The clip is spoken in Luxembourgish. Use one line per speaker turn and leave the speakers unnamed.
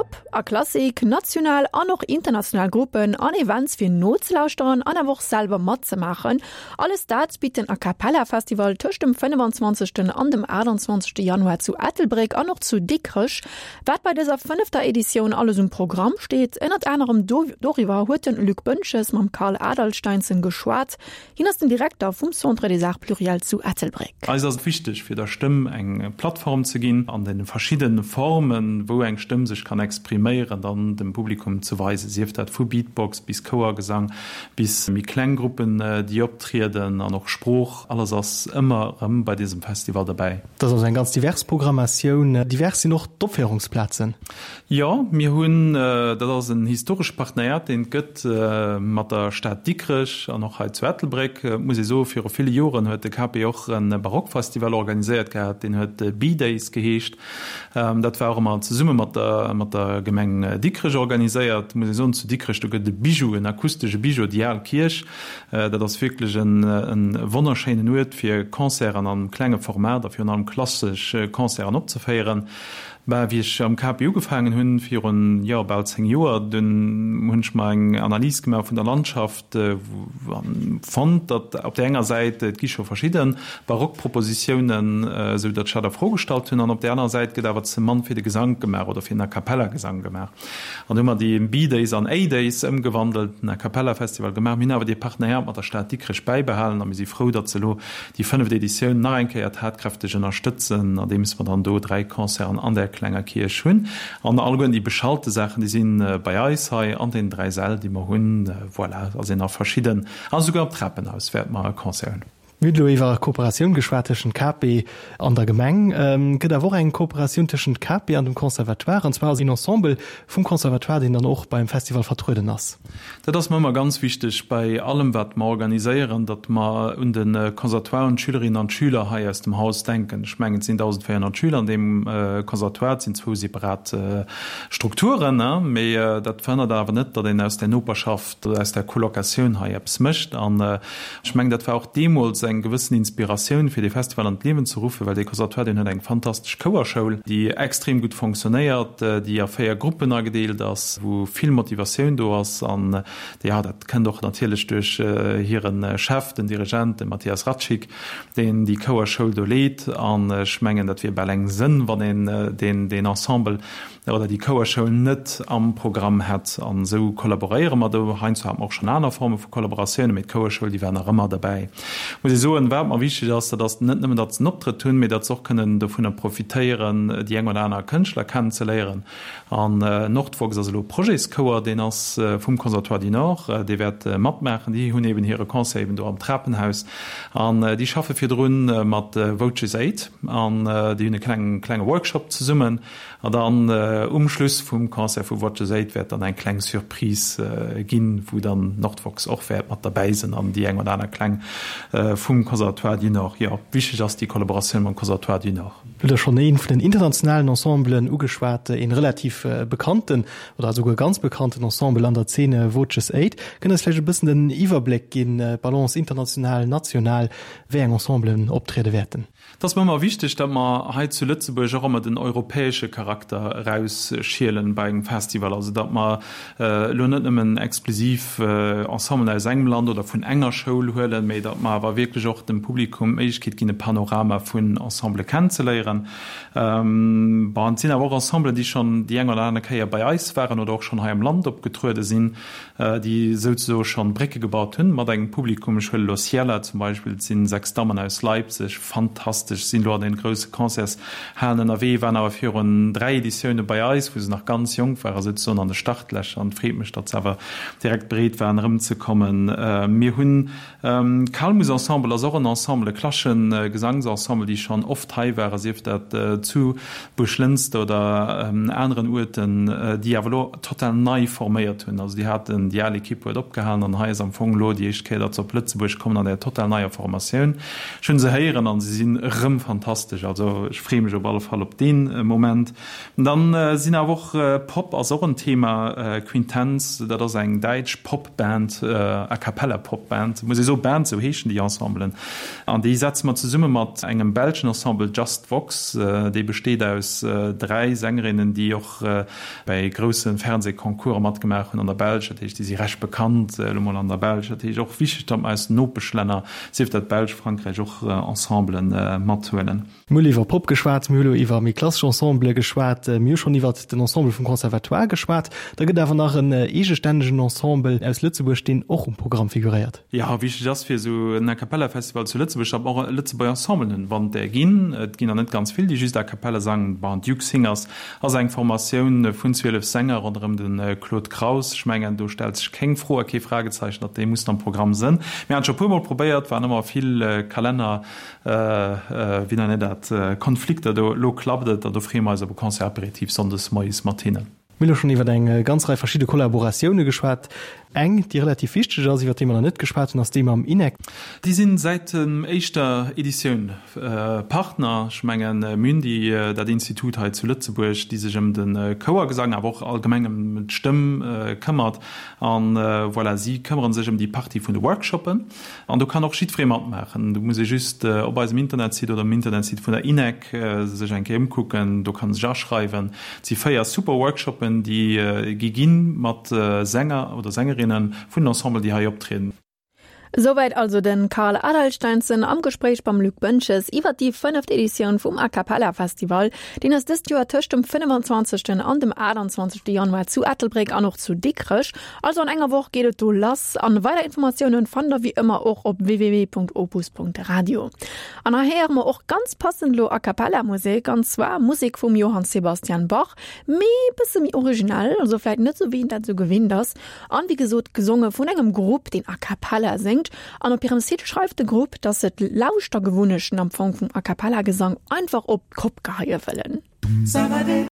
Pop a Klassik, national an och international Gruppen an Events fir nozelauschteren an awer och selwer matzemaachen. Alles dat bitt den A Cappella Festival tëscht dem 25. an dem 28. Januar zu Ettelbréck an och zu Dikrech. Wat bei dëser fënnefter Editioun alles um Programm steet, ënnert anerem doriwwer huet den Luc Boentges mam Carl Adalsteinsson geschwat. Hien ass den Direkter vum Centre des Arts Pluriels zu Ettelbréck.
Eis ass et wichteg, fir der Stëmm eng Plattform ze ginn, an den verschidden Formen, wou eng Stëmm sech kann expriméieren, dann dem Publikum ze weisen, sief dat vu Beatbox bis Chouergesang, bis méi kleng Gruppen, déi optrieden, an och Sprooch, alles ass ëmmer erëm bei diesem Festival derbäi.
Dat ass also eng ganz divers Programmatioun. Divers sinn och d'Opféierungsplazen.
Jo, mir hunn, dat ass en historesche Partenariat, deen et gëtt mat der Stad Dikrech an och hei zu Ettelbréck. Et muss ee soen, viru ville Joren huet de KP och e Barockfestival organiséiert gehat, deen huet B-Days geheescht. Dat war och ëmmer zesumme mat der, mat der Gemeng Dikrech organiséiert. Et muss ee soen, zu Dikrech, do gëtt et e Bijou, en akustesche Bijou, déi al Kierch. Dat ass wierklech e wonnerschéinen Uert, fir Concerten am klenge Format a virun allem klassesch Concerten opzeféieren. Bah, wéi ech am KP ugefaangen hunn, virun, jo, bal 10 Joer, dunn hunn ech mer eng Analys gemaach vun der Landschaft an fonnt, datt op där enger Säit, et gi scho verschidde Barockpropositiounen, esou datt ech dat a Fro gestallt hunn, an op där anerer Säit gëtt awer ze mann fir de Gesank gemaach oder fir den A-cappella-Gesang gemaach. An du hu mer déi B-Days an A-Days ëmgewandelt, den A-cappella-Festival gemaach. Mir hunn awer dee Partenariat mat der Stad Dikrech bäibehalen a mir si frou, datt se elo déi fënneft Editioun nach eng Kéier tatkräfteg ënnerstëtzen, andeems mer dann do 3 Concerten an där klenger Kierch hunn. An alleguerten déi beschalte Saachen, déi si bei eis hei an deenen 3 Säll, déi mer hunn. Voilà, ass een a verschidden, a souguer am Trapenhaus wäerte mer e Concert hunn.
Mir hunn elo iwwer Kooperatioun geschwat tëschent KP an der Gemeng. Et gëtt awer och eng Kooperatioun tëschent KP an dem Conservatoire, an zwar ass een Ensemble vum Conservatoire, deen dann och beim Festival vertrueden ass.
Dat ass mer ëmmer ganz wichteg bei allem, wat mer organiséieren, datt mer un de Conservatoire, un d'Schülerinnen an d'Schüler hei aus dem Haus denken. Ech mengen, et sinn 1.400 Schüler an deem Conservatoire, et sinn zwou separat Strukturen, mee dat verhënnert awer net, datt een aus där Noperschaft, aus där Colocatioun hei eppes mécht. An ech mengen, dat war och deemools eng gewëssen Inspiratioun, fir dee Festival an d'Liewen ze ruffen, well dee Conservatoire, deen huet eng fantastesch Chouerschoul, déi extrem gutt fonctionnéiert, déi a 4 Gruppen agedeelt ass, wou vill Motivatioun do ass. An jo, dat kënnt och natierlech duerch hire Chef, den Dirigent, de Matthias Ratschik, deen déi Chouerschoul do leet. An ech mengen, dat wier bal eng Sënn, wann een deen Ensemble oder déi Chouerschoul net am Programm hätt. An esou kollaboréiere mer do. Heiansdo hate mer och schonn aner Forme vu Kollaboratiounen, mee d'Chouerschoul, déi war nach ëmmer derbäi. Muss ee soen, wat mer wichteg ass, dat ass net nëmmen, datt se en Optrëtt hunn, mee datt se och kënnen dovunner profitéieren, déi eng oder aner Kënschtler kennenzeléieren. An Nordvox ass elo e Projetschouer, deen ass vum Conservatoire du Nord, dee wäert matmaachen. Déi hunn eeben hire Concert eeben do am Trapenhaus an déi schaffe virdrun mat Voces Aid an déi hunn e kleng klenge Workshop zesummen. An dann um Schluss vum Concert vu Voces Aid wäert dann eng kleng Surprise ginn, wou dann Nordvox och wäert mat derbäi sinn an déi eng oder aner Kläng vum Conservatoire du Nord. Jo, wichteg ass déi Kollaboratioun mam Conservatoire du Nord.
Du hutt der schonn ee vun den internationalen Ensemblen ugeschwat, een relativ bekannten oder esouguer ganz bekannten Ensemble an der Zene, Voces Aid. Kënnt eis vläicht e bëssen den Iwwerbléck ginn, d'Balance international, national, wéi eng Ensemblen optriede wäerten?
Et ass mer ëmmer wichteg, datt mer hei zu Lëtzebuerg och ëmmer den europäesche Charakter erausschielen bei engem Festival. Also datt mer elo net nëmmen exklusiv Ensemblen aus engem Land oder vun enger Schoul huelen, mee datt mer awer wierklech och dem Publikum d'Méiglechkeet ginn, e Panorama vun Ensembele kennenzeléieren. Bon, et sinn awer och Ensemblen, déi schonn déi eng oder aner Kéier bei eis waren oder och schonn hei am Land opgetruede sinn. déi souzesoe schonn Brécke gebaut hunn mat engem Publikum. Ech huele lo Ciela zum Beispill, et sinn 6 Dammen aus Leipzig, fantastesch, sinn lo an den grousse Concertshalen ënnerwee, waren awer virun 3 Editioune bei eis, wou se nach ganz jonk ware, souzesoen an de Startlächer an et freet mech, datt se awer direkt bereet waren erëmzekommen. Mir hunn D'Calmus Ensemble ass och en Ensemble, e klassesche Gesangsensemble, déi schonn oft hei waren, sief dat zu Buerglënster oder aneren Uerten, déi awer elo total nei forméiert hunn. Also déi haten, déi al Ekipp huet opgehalen an hei ass am Fong elo déi éischt Kéier, datt se op Lëtzebuerg kommen an där total neier Formatioun. Ech hunn se héieren an se sinn. erëm fantastesch. Also ech freeë mech op alle Fall op dee Moment. Dann sinn awer och, Pop ass och en Thema, Quintenz, dat ass eng däitsch Pop-Band, A cappella Pop-Band, muss ee soen, Band, sou heeschen déi Ensemblen. An déi setze mer zesumme mat engem belschen Ensemble, Just Vox, dee besteet aus 3 Sängerinnen, déi och bäi grousse Fernsehconcourse matgemaach hunn an der Belsch. Dat heescht, déi si recht bekannt elo mol an der Belsch. Dat heescht och wichteg, datt mer aus den Nopeschlänner, sief dat d'Belsch, Frankräich, och Ensemblen mathuelen.
Mir hunn iwwer Pop geschwat, mir hu lo iwwer méi klassesch Ensembele geschwat, mir hu schonn iwwer den Ensemble vum Conservatoire geschwat. Da gëtt awer nach en eegestännegen Ensemble aus Lëtzebuerg, deen och um Programm figuréiert.
Jo, wichteg ass fir esou en A-cappella-Festival zu Lëtzebuerg, datt mer och Lëtzebuerger Ensemblen hunn, wann et där ginn. Et ginn der net ganz vill, déi just A cappella sangen. Bon, Duke Singers ass eng Formatioun vun 12 Sänger ronderëm de Claude Kraus. Ech mengen, do stellt sech keng Fro a kee Fragezeichen, datt déi mussen am Programm sënn. Mir haten scho e puermol probéiert, waren ëmmer vill Kalenner Wéi nennt een dat, Konflikter do. Elo klappt et an do freeë mer eis op e Concert apéritif sonndes moies mat hinnen.
Mir hu lo schonn iwwer eng ganz Rei verschidde Kollaboratioune geschwat. Eng, déi relativ wichteg ass, iwwer déi mer nach net geschwat hunn, ass déi mam INEC.
Déi sinn säit dem éischter Editioun Partner. Ech mengen, mir hunn déi, dat Institut hei zu Lëtzebuerg, déi sech ëm de Chouergesang, awer och allgemeng ëm d'Stëmm këmmert. An voilà, si këmmere sech ëm déi Partie vun de Workshoppen. An do kann och jiddweree matmaachen. Do muss ee just op eisem Internetsite oder um Internetsite vun der INEC sech eng Kéier ëmkucken. Do kann ee sech aschreiwen. Et si 4 super Workshoppen, déi gi ginn mat Sänger oder Sängerinne vun den Ensemblen, déi hei optrieden.
Esouwäit also de Karl Adalsteinsson am Gespréich mam Luc Boentges iwwer déi fënneft Editioun vum A Cappella Festival. Deen ass dëst Joer tëscht dem 25. an dem 28. Januar zu Ettelbréck an och zu Dikrech. Also an enger Woch geet et do lass an weider Informatiounen fannt der wéi ëmmer och op www.opus.radio. An hei héiere mer och ganz passend lo A Cappella Musek an zwar Musek vum Johann Sebastian Bach, mee bësse méi originell, also vläit net sou wéi een dat sou gewinnt ass an wéi gesot gesonge vun engem Grupp deen A Cappella séngt an op hirem Site schreift de Grupp, dass se d'Lauschtergewunnechten am Fong vum A Cappella Gesang einfach op d'Kopp geheie wëllen.